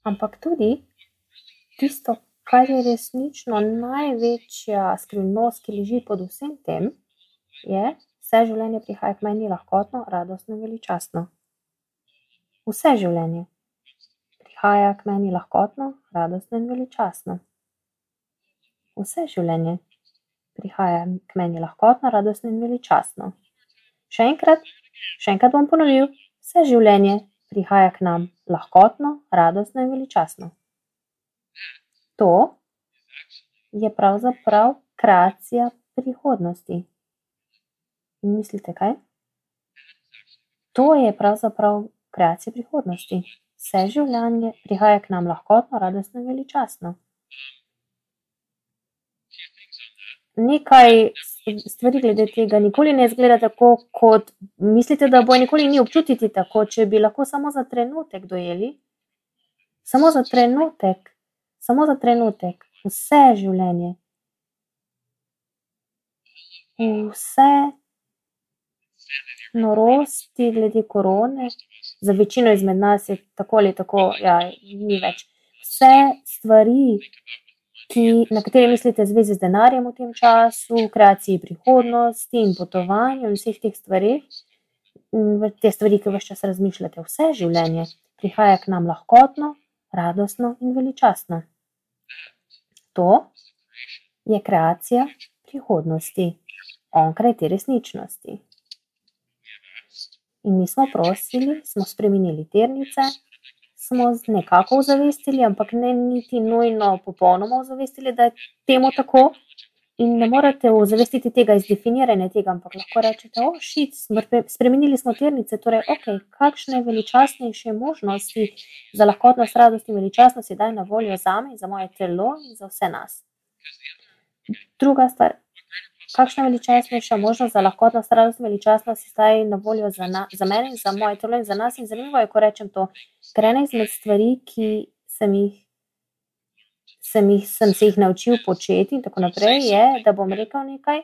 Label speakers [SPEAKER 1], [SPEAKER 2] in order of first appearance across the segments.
[SPEAKER 1] ampak tudi tisto, kar je resnično največja skrivnost, ki leži pod vsem tem, je, vse življenje prihaja k meni lahkotno, radostno in veličastno. Vse življenje prihaja k meni lahkotno, radostno in veličastno. Vse življenje prihaja k meni lahkotno, radostno in veličastno. Še enkrat bom ponovil, vse življenje prihaja k nam lahkotno, radostno in veličastno. To je pravzaprav kreacija prihodnosti. In mislite, kaj? To je pravzaprav kreacija prihodnosti. Vse življenje prihaja k nam lahkotno, radostno in veličastno. Nekaj stvari glede tega nikoli ne izgleda tako, kot mislite, da bo nikoli ni občutiti tako, če bi lahko samo za trenutek dojeli. Samo za trenutek, vse življenje. Vse norosti glede korone, za večino izmed nas je tako ali tako, ni več. Vse stvari, na katere mislite v zvezi z denarjem v tem času, kreaciji prihodnosti in potovanju in vseh teh stvareh, te stvari, ki ves čas razmišljate, vse življenje prihaja k nam lahkotno, radostno in veličastno. To je kreacija prihodnosti, onkraj te resničnosti. In mi smo prosili, smo spremenili tirnice, smo nekako ozavestili, ampak ne niti nujno popolnoma ozavestili, da je temu tako. In ne morete ozavestiti tega iz definiranja tega, ampak lahko rečete, spremenili smo tirnice, torej, kakšne veličastnejše možnosti za lahkotnost, radost in veličastnost je daj na voljo zame in za moje telo in za vse nas. Druga stvar, kakšna veličastnejša možnost za lahkotnost, radost in veličastnost je zdaj na voljo za mene in za moje telo in za nas. In zanimivo je, ko rečem to, ker ena izmed stvari, ki sem se jih naučil početi in tako naprej, je, da bom rekel nekaj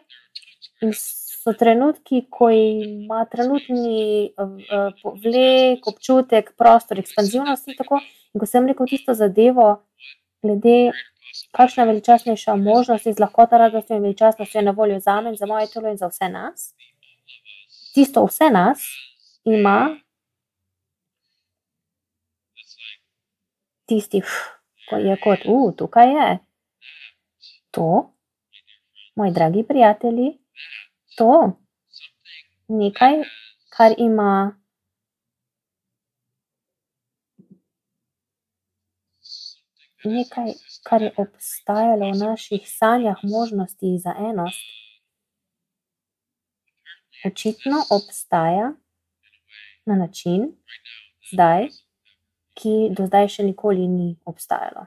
[SPEAKER 1] in so trenutki, ko ima trenutni vlek, občutek, prostor, ekspanzivnost in tako. In ko sem rekel tisto zadevo, glede kakšna veličastnejša možnost iz lahkota, radosti in veličastnosti je na voljo zame in za moje telo in za vse nas, tisto vse nas ima tisti, ko je kot, tukaj je. To, moji dragi prijatelji, to, nekaj, kar ima nekaj, kar je obstajalo v naših sanjah možnosti za enost, očitno obstaja na način zdaj, ki do zdaj še nikoli ni obstajalo.